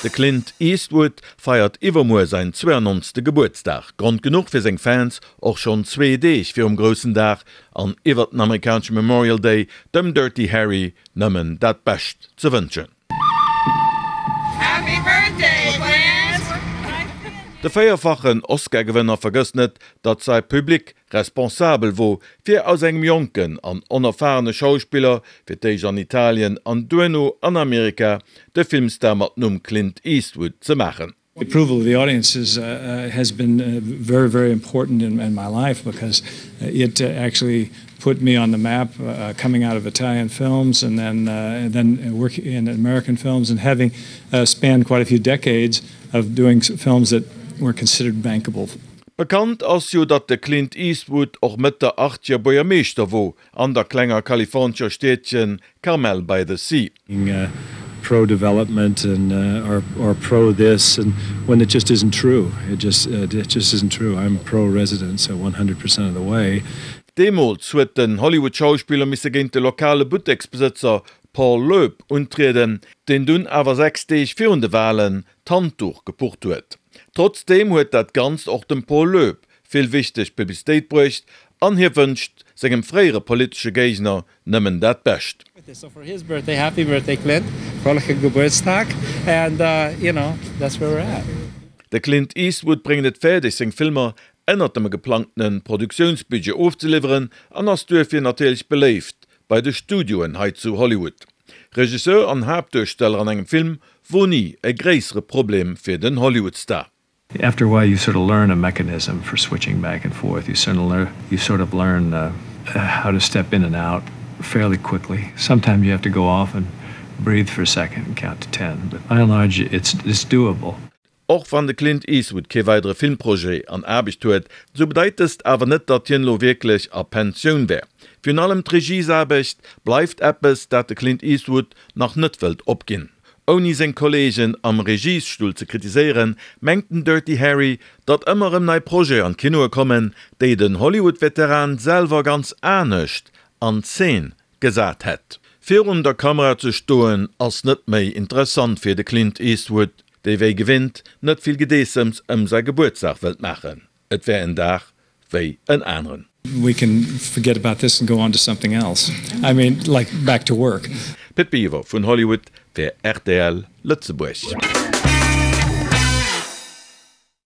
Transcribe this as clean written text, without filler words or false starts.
De Clint Eastwood feiert iwwermuer säin 92. Gebuertsdag. Grond genuch fir seng Fans, och schonn zwee Deeg virum groussen Dag an iwwert den amerikanesche Memorial Day dem Dirty Harry nëmmen dat Bescht ze wënschen. Happy Birthday Clint! De véierfachen Oscar-Gewënner vergësst net, datt säi Public responsabel wor, fir aus engem jonken an onerfahrene Schauspiller, fir d'éischt an Italien an duerno an Amerika, de Filmstar mat Numm Clint Eastwood ze maachen. The approval of the audiences has been very, very important in my life because it actually put me on the map coming out of Italian films and then then working in American films and having spanned quite a few decades of doing films that were considered bankable. Bekannt ass jo, datt de Clint Eastwood och Mëtt der Achtzeger Buergermeeschter wor an der klenger kalifornescher Stiedchen Carmel by the Sea. Pro development and or pro this and when it just isn't true it just it just isn't true I'm pro residents 100 percent of the way. Deemools huet den Hollywood-Schauspiller misse géint de lokale Butteksbesëtzer Paul Loeb untrieden, deen dunn awer 6 Deeg virun de Walen d'Handduch gepucht huet. Trotzdeem huet dat Ganzt och dem Paul Loeb vill wichteg Publicitéit bruecht an hie wënscht sengem fréiere politesche Géigner nëmmen dat Bescht. De Clint Eastwood bréngt et fäerdeg seng Filmer ënnert dem geplangtene Produktiounsbudget ofzeliwweren an ass duerfir natierlech beléift bei de Studioen hei zu Hollywood. Regisseur an Haaptduersteller an engem Film wor ni e gréissere Problem fir den Hollywood-Star. After a while you sort of learn a mechanism for switching back and forth, you sort of learn, you sort of learn how to step in and out fairly quickly. Sometimes you have to go off and breathe for a second and count to ten, but by and large it's it's doable. Och wann de Clint Eastwood kee weidere Filmprojet an Aarbecht huet, sou bedeit dëst awer net, datt hien elo wierklech a Pensioun wär. Virun allem d'Regiesaarbecht bleift eppes, dat de Clint Eastwood nach net wëllt opginn. Ouni seng Kolleegen am Regiesstull ze kritiséieren, mengt den Dirty Harry, datt ëmmer erëm nei Projete an d'Kinoe kommen, déi den Hollywood-Veteran selwer ganz anescht an Zeen gesat hätt. Virun der Kamera ze stoen ass net méi interessant fir de Clint Eastwood, dee wéi gewinnt net vill Gedeessems ëm säi Gebuertsdag wëllt maachen. Et wär en Dag wéi en aneren. We can forget about this and go on to something else, I mean like back to work. Pit Biwer vun Hollywood fir rtl Lëtzebuerg.